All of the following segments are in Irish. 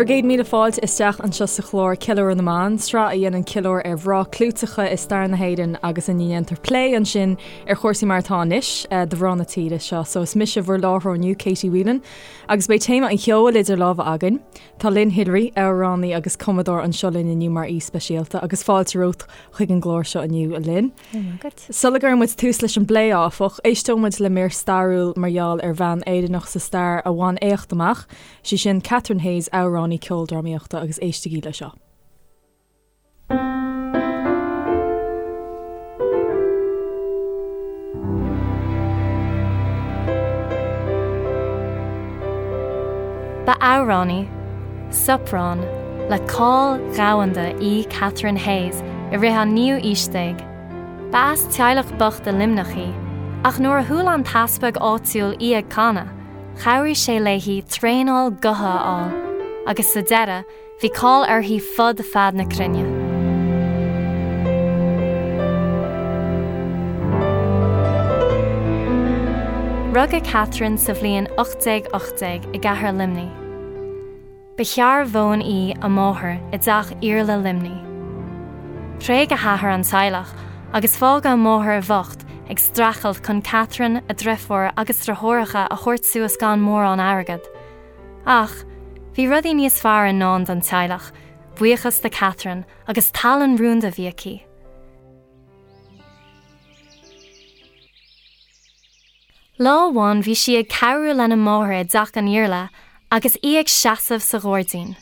Bhur gcéad míle fáilte isteach anseo sa chlár Ceiliúradh na mBan, sraith a dhéanann ceiliúradh ar mhná clúiteacha i stair na hÉireann agus ina ndéantar plé ansin ar chúrsaí mar atá anois do mhná na tíre seo. So is mise bhur láithreoir inniu, Katie Whelan, agus beidh téama an cheoil idir lámha againn. Tá Lynn Hillery, amhránaí agus cumadóir anseo linn inniu mar aoi speisialta agus fáilte romhat chuig an gclár seo inniu, a Lynn. Sula gcuireann muid tús leis an bplé, áfach, éisteoidh muid le mír stairiúil mar gheall ar bhean Éireannach sa stair a bhain éacht amach, Sí sin Catherine Hayes, amhránaí ceoldrámaíochta agus éistigí le seo. Ba amhránaí soprán le cáil dhomhanda í Catherine Hayes i rith an naoú aois déag. Ba as teaghlach bocht i Luimneach í, ach nuair a chuala an t-easpag áitiúil í ag canadh, Chabhraigh sé léi traenáil gutha a fháil agus sa deireadh bhí cáil uirthi fud fad na cruinne. Rugadh Catherine sa bhliain 1818 i gcathair Luimnigh. Ba shearbhóin í a máthair i dteach Iarla Luimnigh. Thréig a hathair an teaghlach agus fágadh a máthair bhocht ag streachailt chun Catherine, a driofúr agus driotháireacha a thabhairt suas gan mórán airgead. Ach, bhí rudaí níos fearr i ndán don teaghlach, buíochas do Catherine agus tallann rúnda a bhí aici. Lá amháin bhí sí ag cabhrú lena máthair i dteach an Iarla agus í ag seasamh sa ghairdín.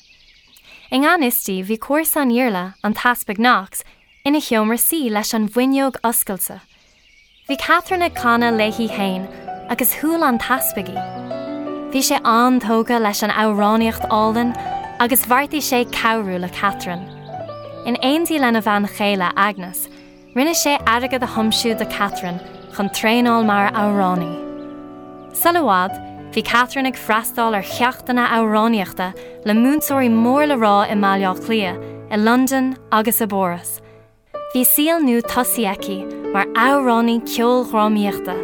I ngan fhios di bhí comharsa an Iarla, an tEaspag Knox, ina sheomra suí leis an bhfuinneog oscailte. Bhí Catherine ag canadh léi féin agus chuala an tEaspag í. Bhí sé an-tógtha leis an amhránaíocht álainn agus bheartaigh sé cabhrú le Catherine. In éindí lena bhean chéile, Agnes, Rinne sé airgead a thiomsú do Catherine chun traenáil mar amhránaí. Sula i bhfad, bhí Catherine ag freastáil ar cheachtanna amhránaíochta le múinteoirí mór le rá i mBaile Átha Cliath, i Londain agus i bPáras. Bhí saol nua tosaithe aici mar amhránaí ceoldrámaíochta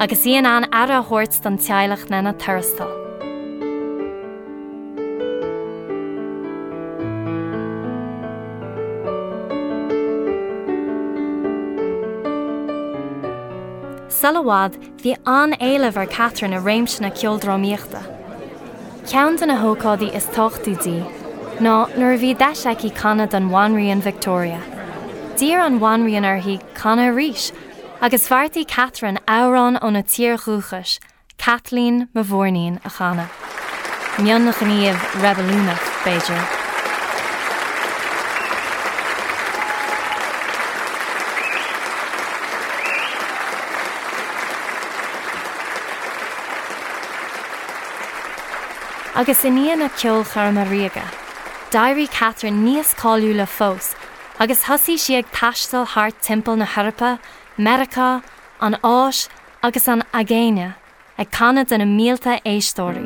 agus í in ann aire a thabhairt don teaghlach lena tuarastal. Sula i bhfad, bhí an-éileamh ar Catherine i réimse na ceoldrámaíochta. Ceann de na hócáidí is tábhachtaí di ná nuair a bhí deis aici canadh don Bhanríon Victoria. D'iarr an Bhanríon uirthi canadh arís agus bheartaigh Catherine amhrán óna tír dhúchais, Caitlín mo Mhúirnín a chanadh. Mionghníomh reibiliúnach, b'fhéidir. Agus i ndiaidh na ceolchoirme ríoga, d'éirigh Catherine níos cáiliúla fós agus thosaigh sí ag taisteal thart timpeall na hEorpa, Meiriceá, an Áis agus an Aigéine ag canadh do na mílte éisteoirí.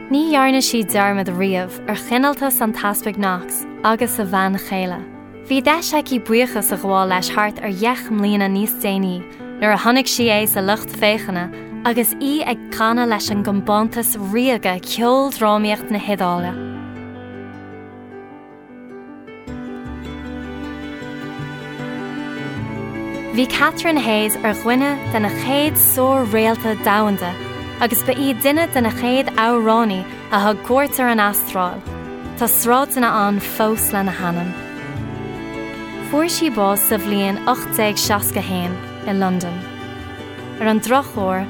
Ní dhearna sí dearmad riamh ar chineáltas an tEaspaig Knox agus a bhean chéile. Bhí deis aici buíochas a ghabháil leis thart ar dheich mbliana níos déanaí nuair a chonaic sí é sa lucht féachana agus í ag canadh leis an gCompántas Ríoga Ceoldrámaíocht na hIodáile. Bhí Catherine Hayes ar dhuine de na chéad sár-réalta domhanda agus ba í duine de na chéad amhránaí a thug cuairt ar an Astráil. Tá sráideanna ann fós lena hainm. Fuair sí bás sa bhliain 1861 i Londain. Ar an drochuair,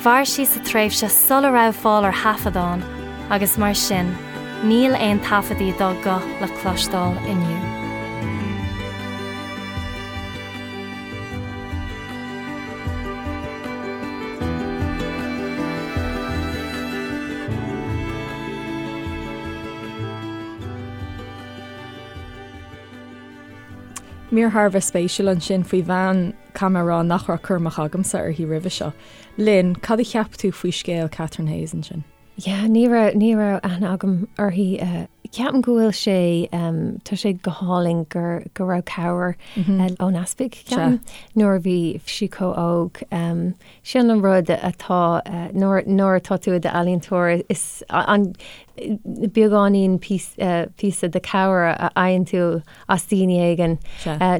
Mhair sí sa tréimhse sula raibh fáil ar thaifeadáin agus mar sin níl aon taifeadaí dá guth le cloisteáil inniu. Mír thar a bheith spéisiúil ansin faoi bhean, caithfidh mé a rá nach raibh cur amach agamsa uirthi roimhe seo. Lynn, cad a cheap tú faoi scéal Catherine Hayes ansin? Yeah, ní raibh, ní raibh aithne agam uirthi. Ceapaim go bhfuil sé, tá sé go hálainn gur, go raibh cabhair ón easpag, ceapaim, nuair a bhí sí chomh óg. Sin an rud atá, nuair, nuair atá tú i d'ealaíontóir, is an beagáinín píosa de cabhair a fhaigheann tú as daoine éigin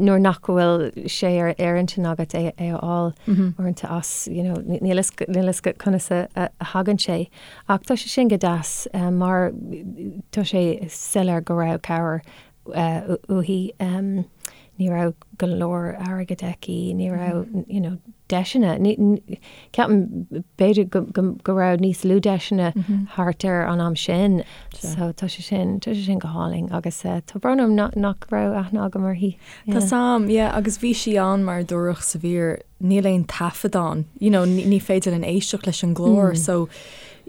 nuair nach bhfuil sé ar ar intinn agat é a fháil uaireanta as, you know, níl a fhios conas a thagann sé. Ach tá sé sin go deas mar tá sé soiléir go raibh cabhair uaithi. Ní raibh go leor airgid aici, ní raibh you know deiseanna. Ceapaim b'fhéidir go raibh níos lú deiseanna thart ar an am sin. So tá sé sin, tá sé sin go hálainn agus tá brón orm nach raibh aithne agam uirthi. Tá sam, yeah, agus bhí sí ann mar a dúradh sa mhír níl aon taifead ann, you know, ní féidir linn éisteacht leis an nglór so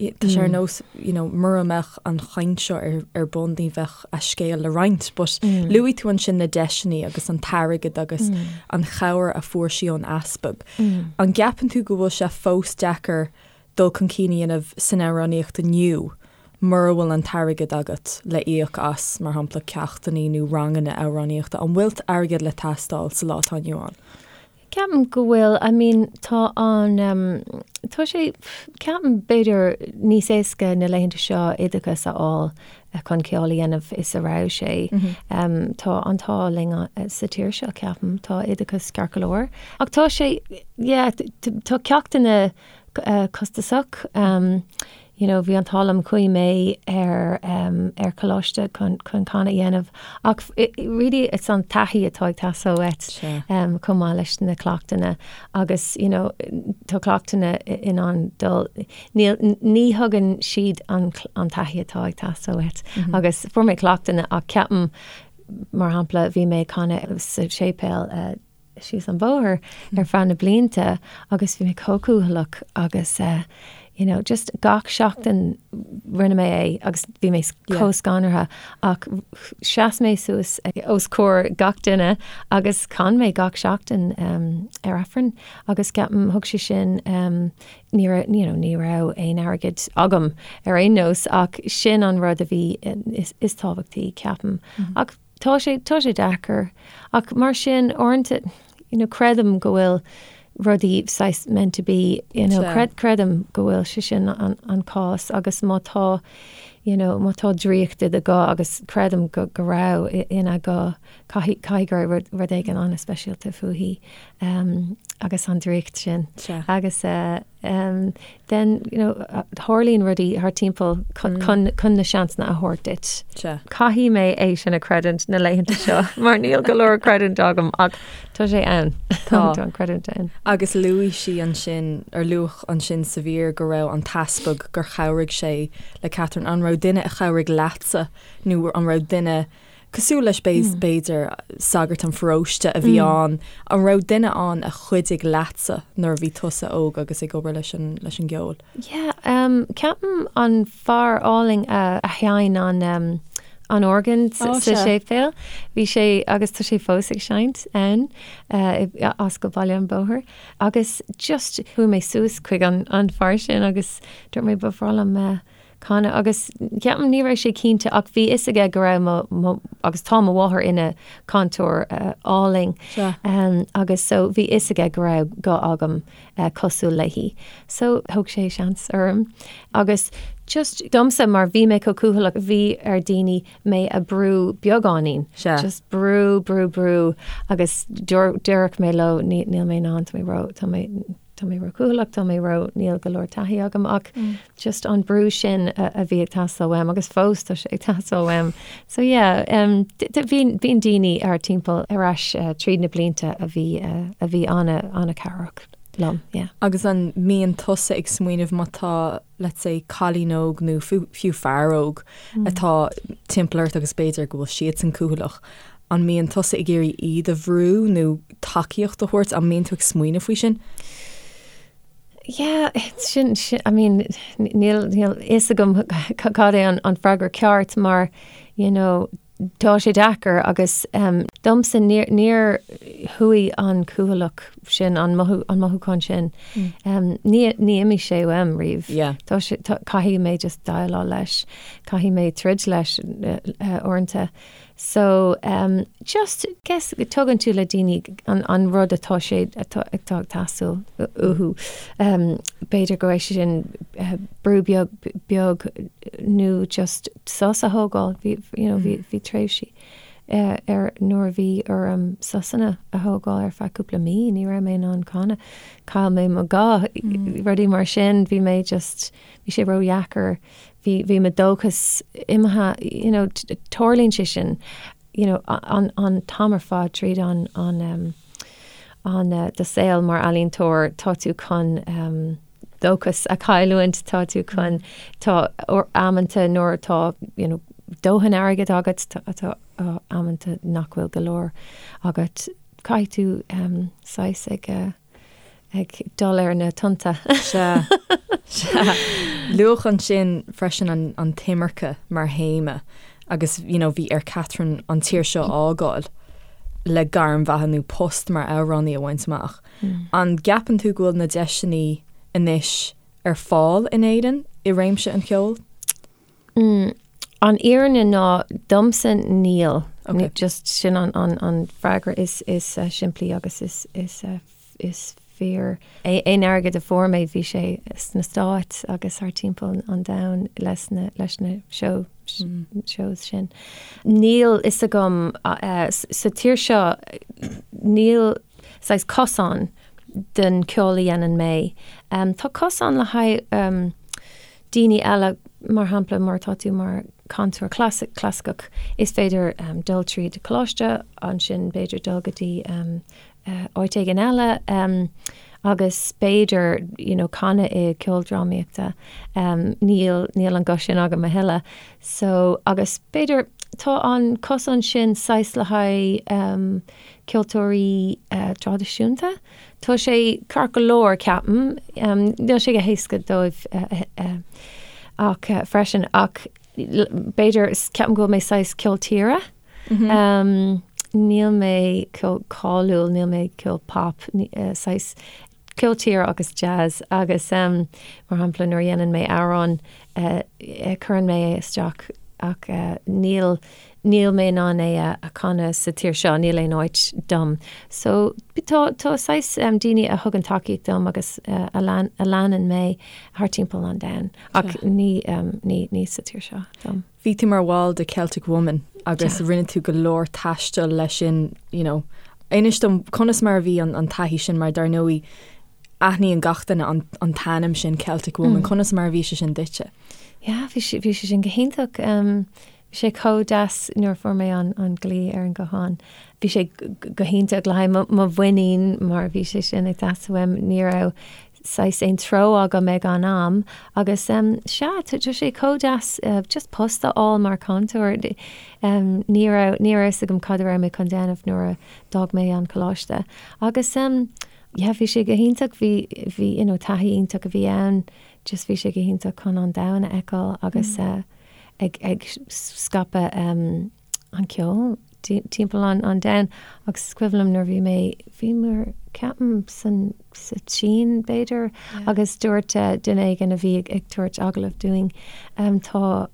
tá sé ar nós, you know, mura mbeadh an chaint seo ar, ar bun ní bheadh a scéal le roinnt. But luaigh tú ansin na deiseanna agus an t-airgead agus an chabhair a fuair sí ón easpag. An gceapann tú go bhfuil sé fós deacair dul chun cinn a dhéanamh san amhránaíocht inniu mura bhfuil an t-airgead agat le íoc as, mar shampla, ceachtanna nó ranganna amhránaíochta? An bhfuil airgead le teastáil sa lá atá inniu ann? Ceapaim go bhfuil, I mean tá an, tá sé, ceapaim b'fhéidir níos éasca na laethanta seo oideachas a fháil chun ceol a dhéanamh is a raibh sé. Tá an t-ádh linn sa tír seo ceapaim, tá oideachas ceart go leor. Ach tá sé, yeah, tá ceachtanna costasach. You know, bhí an t-ádh liom chuaigh mé ar ar choláiste chun chun canadh a dhéanamh ach really it's an taithí atá ag teastáil uait chomh maith leis na cleachtanna agus you know tá cleachtanna in ann dul níl ní thugann siad an an taithí atá ag teastáil uait agus fuair mé cleachtanna ach ceapaim mar shampla bhí mé ag canadh sa séipéal síos an bóthar ar feadh na blianta agus bhí mé chomh cúthaileach agus you know just gach seachtain rinne mé é agus bhí mé chomh scanraithe ach sheas mé suas os comhair gach duine agus chan mé gach seachtain ar Aifreann agus ceapaim thug sé sin ní raibh you know ní raibh aon airgead agam ar aon nós ach sin an rud a bhí is, is tábhachtaí ceapaim ach Tá sé, tá sé deacair. Ach mar sin, uaireanta, you know, creidim go bhfuil rudaí saghas meant to be, you know, creid, creidim go bhfuil sé sin an, an cás agus má tá, you know, má tá draíocht i do ghuth agus creidim go, go raibh ina guth, caithfidh, caithfidh go raibh rud, rud éigin an-speisialta fúithi, um, agus an draíocht sin. Sea. Agus, eh, then you know tarlaíonn rudaí thar timpeall chun mm. chun na seansanna a thabhairt duit. Caithfidh mé é sin a chreidiúint na laethanta seo mar níl go leor creidiúint agam ach tá sé ann Tá an creidiúint ann. Agus luaigh sí ansin ar luadh ansin sa mhír go raibh an t-easpag gur chabhraigh sé le Catherine an raibh duine a chabhraigh leatsa nó an raibh duine Cosúil leis b'fhéidir, sagart an pharóiste a bhí ann, an raibh duine ann a chuidigh leatsa nuair a bhí tusa óg agus ag obair leis an leis an gceol? Yeah, ceapaim an fear álainn a sheinn an an organ sa séipéal, bhí sé agus tá sé fós ag seinnt ann as go Baile an Bhóthair agus just chuaigh mé suas chuig an an fear sin agus dúirt mé ba bhreá liom canadh agus ceapaim ní raibh sé cinnte ach bhí fhios aige go raibh mo, mo, agus tá mo mháthair ina cainteoir álainn agus so bhí fhios aige go raibh guth agam cosúil léi. So thóg sé seans orm agus just domsa mar bhí mé chomh cúthaileach bhí ar daoine mé a brú beagáinín. Just brú, brú, brú agus déarfadh mé leo níl mé in ann, tá mé ró, tá mé tá mé ró-chúthaileach, tá mé ró, níl go leor taithí agam ach just an brú sin a bhí ag teastáil uaim agus fós tá sé ag teastáil uaim. So yeah, um, bíonn bíonn daoine thar timpeall ar ais uh, tríd na blianta a bhí uh, a bhí ana ana-chabhrach liom, yeah. Agus an mbíonn tusa ag smaoineamh má tá, let's say, cailín óg nó fiú fear óg atá timpeall ort agus b'fhéidir go bhfuil siadsan cúthaileach, An mbíonn tusa ag iarraidh iad a bhrú nó tacaíocht a thabhairt? An mbíonn tú ag smaoineamh faoi sin? Yeah, sin, sin, I mean, níl, níl fhios agam cad é an, an freagra ceart mar, you know, tá sé deacair agus um, Domsa, níor, níor chuaigh an cúthaileach sin, an mothú, an mothúchán sin, ní, ní imigh sé uaim riamh. Yeah. Tá sé, tá, caithfidh mé just déileáil leis, caithfidh mé troid leis uaireanta. So, just, guess, tugann tú le daoine an, an rud atá sé, atá, atá ag teastáil uathu. B'fhéidir go raibh sé sin brú beag, beag nó just sos a thógáil, bhí, you know, bhí, bhí tréimhsí ar nuair a bhí orm sosanna a thógáil ar feadh cúpla mí, ní raibh mé in ann canadh, chaill mé mo ghuth, rudaí mar sin, bhí mé just, bhí sé ródheacair, bhí, bhí mo dóchas imithe, you know, tarlaíonn sé sin, you know, an, an t-am ar fad tríd an, an, an, do saol mar ealaíontóir, tá tú chun dóchas a chailliúint, tá tú chun, tá amanta nuair atá, you know, dóthain airgid agat, tá amanta nach bhfuil go leor agat, caithfidh tú saghas ag, ag dul ar na tonnta. Sea, sea. Luadh ansin freisin an, an t-imirce mar théama agus, you know, bhí ar Catherine an tír seo a fhágáil le gairm bheatha nó post mar amhránaí a bhaint amach. An gceapann tú go bhfuil na deiseanna anois ar fáil in Éirinn i réimse an cheoil? An fhírinne ná domsa níl. Just sin an an freagra is is simplí agus is is is fíor. Aon airgead a fuair mé bhí sé sna Stáit agus thar timpeall an domhain leis na leis na show shows sin. Níl fhios agam sa tír seo níl saghas cosán don ceol a dhéanann mé. Tá cosán le haghaidh daoine eile, mar shampla mar tá tú mar chantóir clasaiceach, is féidir dul tríd coláiste, ansin b'fhéidir dul go dtí áit éigin eile agus b'fhéidir you know canadh i ceoldrámaíochta. Níl, níl an guth sin agam a thuilleadh. So, agus b'fhéidir tá an cosán sin saghas le haghaidh ceoltóirí traidisiúnta. Tá sé ceart go leor, ceapaim. Níl sé go héasca dóibh ach freisin ach b'fhéidir ceapaim go bhfuil mé saghas ceol tíre. Níl mé ceol cáiliúil, níl mé ceol pop, saghas ceol tíre agus jazz agus mar shampla nuair a dhéanann mé amhrán cuireann mé é isteach ach níl níl mé in ann é a chanadh sa tír seo, níl aon áit dom. So tá tá saghas daoine a thugann tacaíocht dom agus a lean a leanann mé thar timpeall an domhain ach ní ní ní sa tír seo dom. Bhí tú mar bhall de Celtic Woman agus rinne tú go leor taistil leis sin, you know. Inis dom conas mar a bhí an an taithí sin mar dar ndóigh aithníonn gach duine an an t-ainm sin Celtic Woman, conas mar a bhí sé sin duitse? Yeah, bhí sé bhí sé sin go hiontach. Bhí sé chomh deas nuair a fuair mé an glao ar an guthán. Bhí sé go hiontach le haghaidh mo mhuinín mar bhí sé sin ag teastáil uaim. Ní raibh saghas aon treo agam ag an am agus sea, tá sé chomh deas just post a fháil mar chantóir. Ní raibh, ní raibh fhios agam cad a raibh mé chun déanamh nuair a d'fhág mé an coláiste. Agus yeah, bhí sé go hiontach, bhí, bhí, you know, taithí iontach a bhí ann, just bhí sé go hiontach chun an domhan a fheiceáil agus ag ag scaipeadh an ceol timpeall an an domhain agus is cuimhin liom nuair bhí mé bhí mé ceapaim san sa tSín b'fhéidir agus dúirt duine éigin a bhí ag ag tabhairt agallamh dúinn tá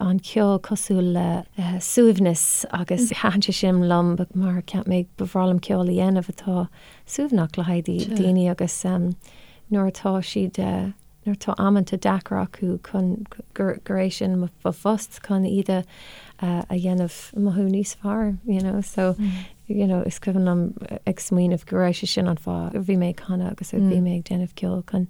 an ceol cosúil le suaimhneas agus thaitin sé sin liom mar cheap mé ba bhreá liom ceol a dhéanamh atá suaimhneach le haghaidh daoine agus nuair atá siad nuair atá amanta deacair acu chun gur gur é sin mo phost chun iad a a dhéanamh mothú níos fearr you know so you know is cuimhin liom ag smaoineamh go raibh sé sin an fáth a bhí mé ag canadh agus a bhí mé ag déanamh ceoil chun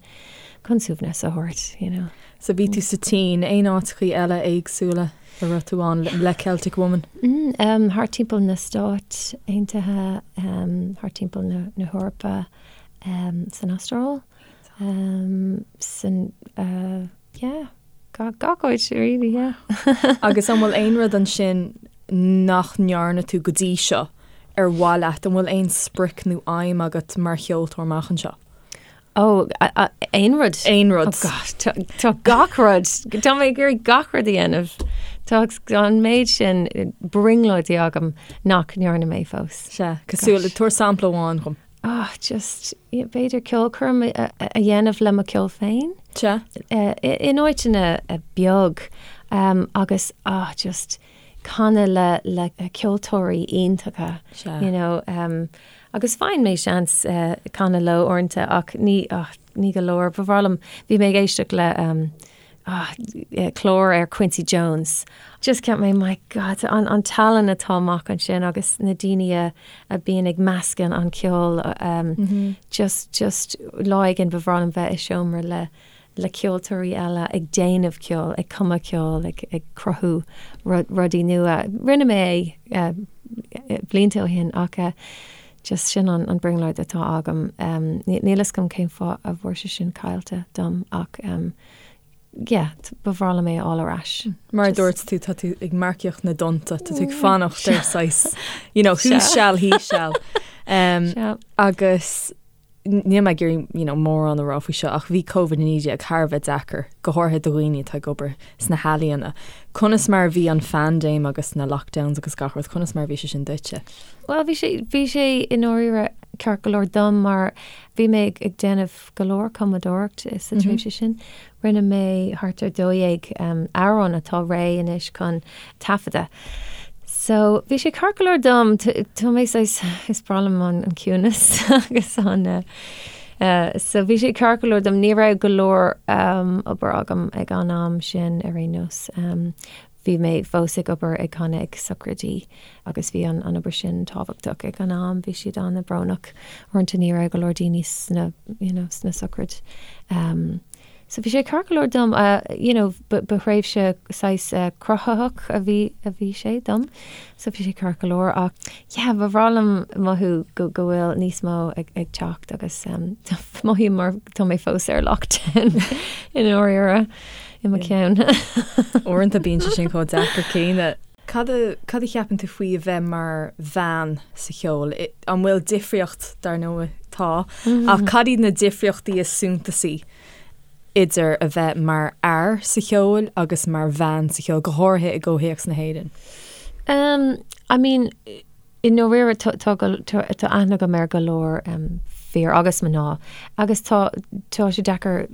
chun suaimhneas a thabhairt you know. So bhí tú sa tSín, aon áiteachaí eile éagsúla a raibh tú ann le Celtic Woman? Mm, thart timpeall na Stáit Aontaithe, thart timpeall na na hEorpa, san Astráil. San, yeah, gach áit really, yeah. Agus an bhfuil aon rud ansin nach ndearna tú go dtí seo ar mhaith leat? An bhfuil aon sprioc nó aidhm agat mar cheoltóir amach anseo? Oh, aon rud. Aon rud. Oh God, tá gach rud. Tá mé ag iarraidh gach rud a dhéanamh. Tá an méid sin brionglóidí agam nach ndearna mé fós. Sea, cosúil le, tabhair sampla amháin dhom. Ah, just, b'fhéidir ceolchoirm a dhéanamh le mo cheol féin. Sea. In áiteanna beag agus, ah, just canadh le le ceoltóirí iontacha. Sea. You know, agus faigheann mé seans canadh leo uaireanta ach ní, ah, ní go leor. Ba bhreá liom, bhí mé ag éisteacht le ah, clár ar Quincy Jones. Just cheap mé, my God, an, an tallann atá amach ansin agus na daoine a, a bíonn ag meascadh an ceol, um, mm -hmm. just, just lá éigin ba bhreá liom bheith i seomra le, le ceoltóirí eile ag déanamh ceoil, ag cumadh ceoil, ag, ag cruthú rudaí nua. Rinne mé é uh, blianta ó shin ach uh, just sin an, an brionglóid atá agam. Um, níl fhios agam cén fáth a bhfuil sé sin caillte dom ach um, yeah, ba bhreá liom é a fháil ar ais. Mar a dúirt tú, tá tú ag marcaíocht na dtonnta, tá tú ag fanacht ar saghas, you know, who shall, he shall. Um, agus níl mé ag iarraidh, you know, mórán a rá faoi seo ach bhí Covid-19 thar a bheith deacair, go háirithe do dhaoine atá ag obair sna healaíona. Conas mar a bhí an phaindéim agus na lockdowns agus gach rud, conas mar a bhí sé sin duitse? Bhuel, bhí sé, bhí sé i ndáiríre ceart go leor dom mar bhí mé ag, ag déanamh go leor cumadóireacht sa tréimhse sin. Rinne mé thart ar 12 amhrán atá réidh anois chun taifeadadh. So bhí sé ceart go leor dom, tá mé saghas, is breá liom an ciúnas agus an so bhí sé ceart go leor dom, ní raibh go leor obair agam ag an am sin ar aon nós. Bhí mé fós ag obair ag canadh ag sochraidí agus bhí an obair sin tábhachtach ag an am. Bhí siad an-bhrónach. Uaireanta ní raibh go leor daoine sna, you know, sna sochraid. Um, so bhí sé ceart go leor dom, uh, you know, ba, ba thréimhse saghas uh, cruthaitheach a bhí, a bhí sé dom. So bhí sé ceart go leor ach yeah, ba bhreá liom mothú go, go bhfuil níos mó ag, ag teacht agus um, mothaím mar tá mé fós ar lockdown i ndáiríre. i mo cheann. Uaireanta bíonn sé sin chomh deacair céanna. Cad a cad a cheapann tú faoi a bheith mar bhean sa cheol? An bhfuil difríocht, dar ndóigh tá, ach cad iad na difríochtaí is suntasaí idir a bheith mar fhear sa cheol agus mar bhean sa cheol, go háirithe i gcomhthéacs na hÉireann? Um, I mean, I ndáiríre tá tá aithne agam ar go leor fir agus mná agus tá tá sé deacair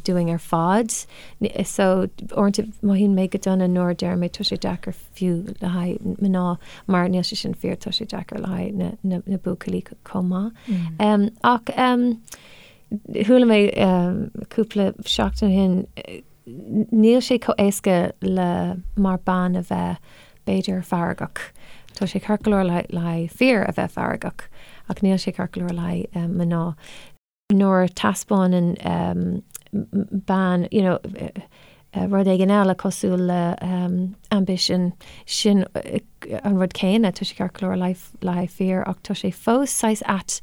dúinn ar fad. So uaireanta mothaíonn mé go dona nuair a deirim tá sé deacair fiú le haghaidh mná mar níl sé sin fíor, tá sé deacair le haghaidh na na na buachaillí chomh maith. Ach chuala mé cúpla seachtain ó shin Níl sé chomh éasca le mar bean a bheith, b'fhéidir, feargach. Tá sé ceart go leor le haghaidh fir a bheith feargach, ach níl sé ceart go leor le haghaidh mná. Nuair a taispeánann bean, you know, rud éigin eile cosúil le ambition, sin an rud céanna, tá sé ceart go leor le haghaidh fir ach tá sé fós saghas ait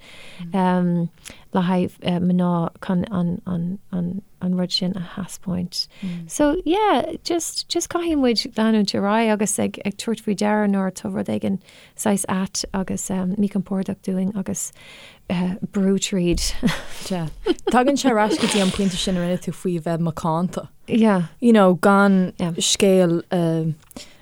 le haghaidh mná chun an, an, an, an rud sin a thaispeáint. So yeah, just, just caithfidh muid leanúint ar aghaidh agus ag, ag tabhairt faoi deara nuair atá rud éigin saghas ait agus um, míchompordach dúinn agus uh, brú tríd. Yeah. Tagann sé ar ais go dtí an pointe sin a rinne tú faoi bheith macánta. Yeah. You know, gan yeah. scéal uh,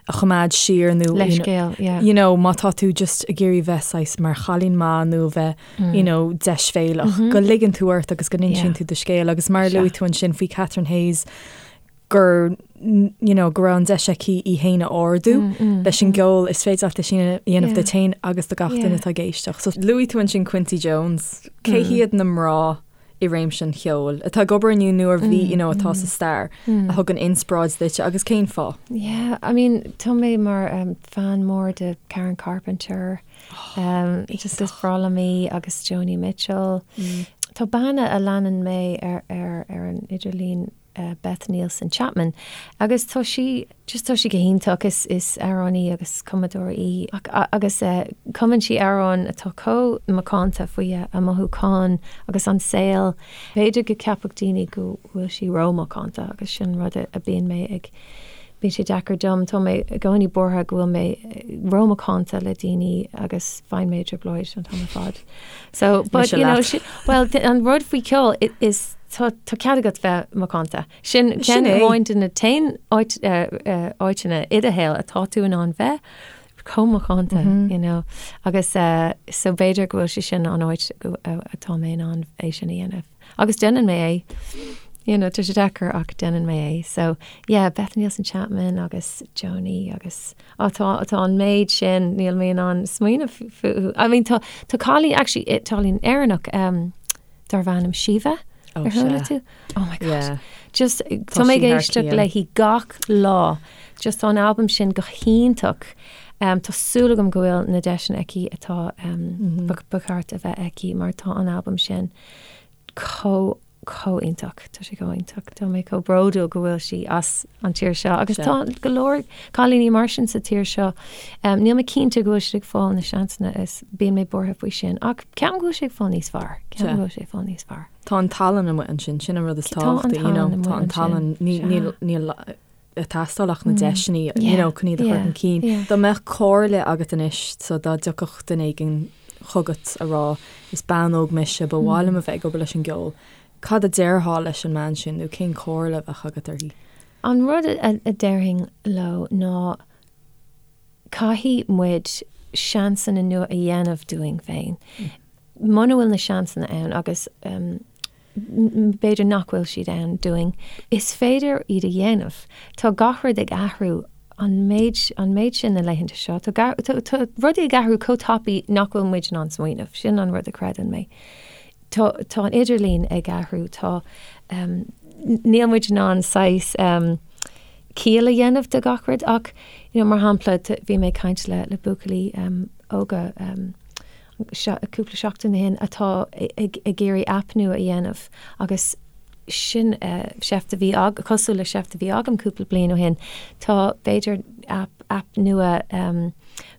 a choimeád siar nó Leithscéal, yeah. you know, má tá tú just ag iarraidh bheith saghas mar chailín maith nó bheith mm. you know, deisbhéalach, mm -hmm. go ligeann tú ort agus go n-insíonn yeah. tú do scéal agus mar luaigh tú ansin faoi Catherine Hayes gur you know, go raibh an deis aici í féin a ardú mm, mm, leis an mm. gceol is féidir leat é sin a dhéanamh yeah. duit féin agus do gach duine atá ag éisteacht. So luaigh tú ansin Quincy Jones, cé mm. hiad na mná i réimse an cheoil, atá ag obair inniu nó a bhí, you know, atá sa stair, a thugann inspioráid duit agus cén fáth? Yeah, I mean, tá mé mar um, fan mór de Karen Carpenter, um, just is breá liom í agus Joni Mitchell. Tá bean a leanann mé ar, ar, ar an idirlíon Beth Nielsen Chapman agus tá sí just tá sí go hiontach is is amhránaí agus cumadóir í agus cumann sí amhráin atá chomh macánta faoi a mothúcháin agus an saol. B'fhéidir go gceapfadh daoine go bhfuil sí rómhacánta agus sin rud a bíonn mé ag. Bíonn sé deacair dom, tá mé i gcónaí buartha go bhfuil mé rómhacánta le daoine agus faigheann mé i dtrioblóid an t-am ar fad. So, but you know, well, an rud faoi ceol is tá cead agat bheith macánta. Sin ceann amháin de na t-aon áiteanna i do shaol atá tú in ann bheith chomh macánta, you know. Agus so b'fhéidir go bhfuil sé sin an áit atá mé in ann é sin a dhéanamh. Agus déanann mé é. You know, tá sé deacair ach déanann mé é. So, yeah, Beth Nielsen Chapman agus Joni agus á tá tá an méid sin níl mé in ann smaoineamh fúthu. I mean tá tá cailín actually cailín Éireannach um, darb ainm Síomha Oh, ar chuala sea. tú? Oh my God. Yeah. Just Tá tá mé ag sí thar éisteacht cionn. léi gach lá. Just tá an albam sin go hiontach. Um, tá súil agam go bhfuil na deiseanna aici atá um, ba ba cheart a bheith aici mar tá an albam sin chomh chomh iontach. Tá sé chomh iontach. Tá mé chomh bródúil go bhfuil sí as an tír seo agus Sea. tá go leor cailíní mar sin sa tír seo. Um, níl mé cinnte go bhfuil siad ag fáil na seansanna is bíonn mé buartha faoi sin ach ceapaim go bhfuil sé ag fáil níos fearr. Ceapaim Sea. go bhfuil sé ag fáil níos fearr. Tá an tallann amuigh ansin, sin an rud is Tá an tábhachtaí, you know, tallann tá amuigh an tallann, ansin. ní- Sea. níl níl ag teastáil ach na deiseanna, you know, chun iad a chur chun cinn. Dá mbeadh comhairle agat anois, so dá dtiocfadh duine éigin chugat a rá, is bean óg mise, ba mhaith liom a bheith ag obair leis an gceol, cad a déarfá leis an mbean sin nó cén chomhairle a bheadh agat uirthi? An rud a déarfainn leo ná caithfidh muid seansanna nua a dhéanamh dúinn féin. Muna bhfuil na seansanna ann agus b'fhéidir nach bhfuil siad ann dúinn, is féidir iad a dhéanamh. Tá gach rud ag athrú an méid, an méid sin na laethanta seo. Tá, tá, tá rudaí ag athrú chomh tapaidh nach bhfuil muid in ann smaoineamh. Sin an rud a chreideann mé. Tá, tá an idirlíon ag athrú, tá, níl muid in ann saghas ciall a dhéanamh de gach rud ach, you know, mar shampla, bhí mé ag caint le, le buachaillí óga, cúpla seachtain ó shin atá ag iarraidh aip nua a dhéanamh agus sin seift a bhí cosúil le seift a bhí agam cúpla bliain ó shin. Tá b'fhéidir aip aip nua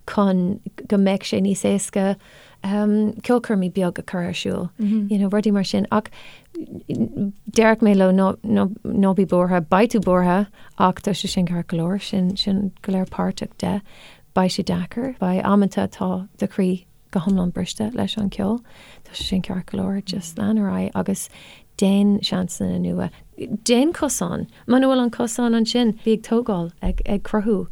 chun go mbeadh sé níos éasca ceolchoirmí beag a chur ar siúl, you know, rudaí mar sin. Ach déarfaidh mé leo ná ná ná bí buartha, beidh tú buartha ach tá sé sin ceart go leor, sin sin go léir páirteach de. Beidh sé deacair. Beidh amanta atá do chroí go hiomlán briste leis an ceol. Tá sé sin ceart go leor. Just lean ar aghaidh agus déan seansanna nua. Déan cosán. Muna bhfuil an cosán ansin, bí ag tógáil, ag ag cruthú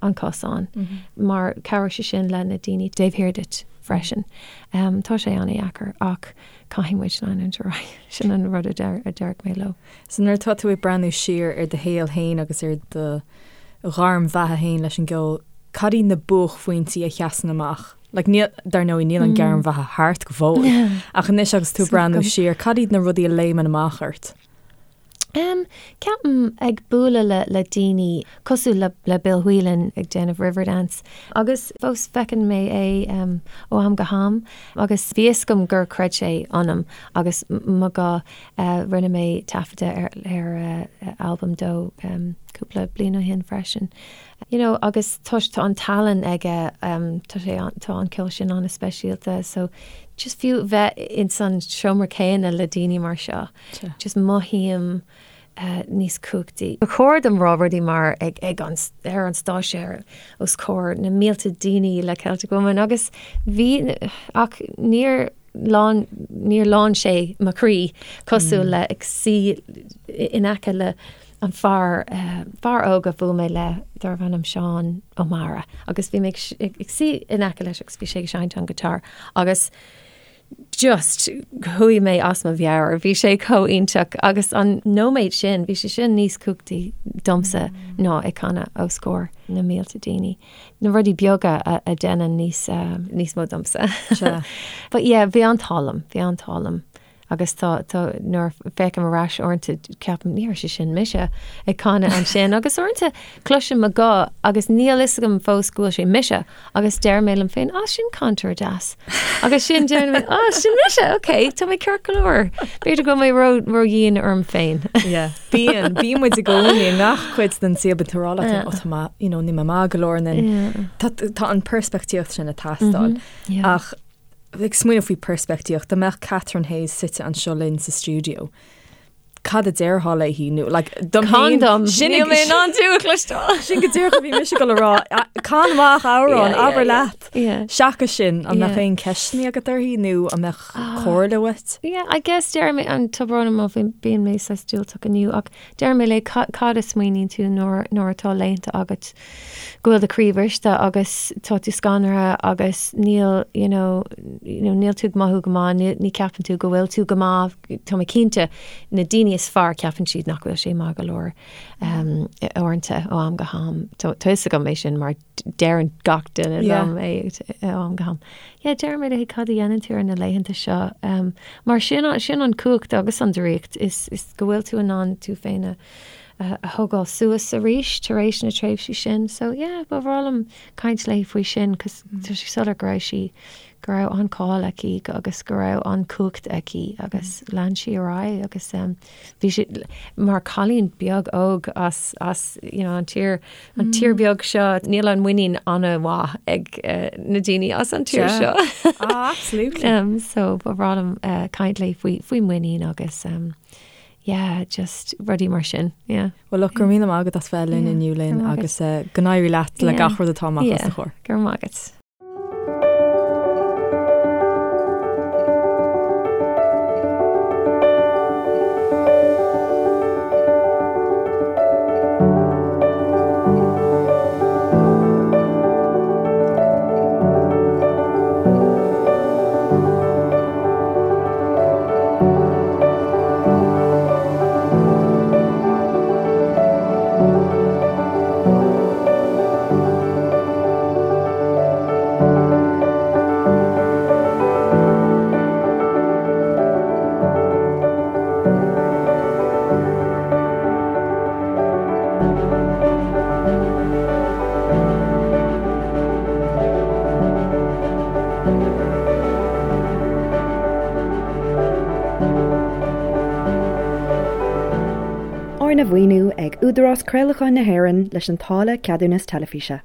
an cosán mar cabhróidh sé sin le na daoine taobh thiar duit freisin. Tá sé an-dheacair ach caithfidh muid leanúint ar aghaidh. Sin an rud a deir a déarfadh mé leo. So nuair atá tú ag breathnú siar ar do shaol féin agus ar do ghairm bheatha féin leis an gceol, cad iad na buaicphointí a sheasann amach? Like níl, dar ndóigh, níl an ghairm bheatha thart go fóill, ach anois agus tú ag breathnú siar, cad iad na rudaí a léimeann amach ort? Em, ceapaim ag bualadh le le daoine cosúil le le Bill Whelan ag déanamh Riverdance agus fós feiceann mé é em ó am go ham agus bhí fhios agam gur chreid sé ionam agus mo ghuth eh rinne mé taifeadadh ar ar eh albam dó em cúpla bliain ó shin freisin. You know agus tá tá an tallann aige em tá sé an tá an ceol sin an-speisialta so just fiú bheith ins an seomra céanna le daoine mar seo. Just mothaím níos cumhachtaí. Ba chóir dom rá rudaí mar ag ag an ar an stáitse ar os comhair na mílte daoine le Celtic Woman agus bhí ach níor lán níor lán sé mo chroí cosúil le ag suí in aice le an fear fear óg a bhuail mé le darbh ainm Seán Ó Meára agus bhí mé ag ag suí in aice leis agus bhí sé ag seinnt an guitar agus just chuaigh mé as mo mheabhair, bhí sé chomh iontach agus an nóiméad sin, bhí sé sin níos cumhachtaí domsa ná ag canadh os comhair na mílte daoine. Na rudaí beaga a a déanann níos níos mó domsa. But yeah, bhí an t-ádh liom, bhí an t-ádh liom agus tá tá nuair a féachaim ar ais uaireanta ceapaim ní raibh sé sin mise ag canadh ansin agus uaireanta cloisim mo ghuth agus níl fhios agam fós go bhfuil sé mise Agus deir mé liom féin, ah, sin cainteoir deas. Agus sin deir mé, ah, sin mise, ok, tá mé ceart go leor. B'fhéidir go bhfuil mé ró ró-dhian orm féin. Yeah. Bíonn, bíonn muid i gcónaí i ngach cuid den saol bíonn tú ag rá leat féin, oh, tá mé, you know, níl mé maith go leor and then Yeah. tá tá an peirspictíocht sin ag teastáil. Yeah. Ach ag smaoineamh faoi peirspictíocht, dá mbeadh Catherine Hayes suite anseo linn sa stiúideo. Cad a déarfá léi nó like dom féin Can dom sin níl mé in ann tú a chloisteáil. Sin go díreach a bhí mise ag dul a rá can amach amhrán abair leat. Seachas sin an mbeadh aon ceisteanna agat uirthi nó an mbeadh comhairle uait? Yeah, I guess deir mé an tá brón orm má bíonn mé saghas diúltach inniu ach deir mé léi cad a smaoiníonn tú nuair nuair atá laethanta agat go bhfuil do chroí briste agus tá tú scanraithe agus níl you know you know níl tú ag mothú go maith, ní ní ceapann tú go bhfuil tú go maith, tá mé cinnte na daoine is fearr ceapann siad nach bhfuil sé maith go leor um, uaireanta ó am go ham. Tá tá fhios agam é sin mar deireann gach duine liom é ó am go ham. Yeah, deir mé léi cad a dhéanann tú ar na laethanta seo um, mar sin sin an cumhacht agus an draíocht is is go bhfuil tú in ann tú féin a a thógáil suas arís tar éis na tréimhsí sin. So yeah, ba bhreá liom caint léi faoi sin cos tá sé soiléir go raibh sí, go raibh an-cháil aici agus go raibh an-chumhacht aici agus lean sí ar aghaidh agus um, bhí sí mar cailín beag óg as, as you know, an tír, an tír beag seo, níl an muinín an-mhaith ag uh, na daoine as an tír seo. Ah, absolutely. Um, so ba bhreá liom uh, caint léi faoi, faoi muinín agus um, yeah, just rudaí mar sin, yeah. Well look, go raibh míle maith agat as bheith linn inniu Lynn agus go n-éirí leat le gach rud atá amach os do chomhair. Go raibh maith agat. Arna mhaoiniú ag Údarás Craolacháin na hÉireann leis an táille Ceadúnas Teilifíse.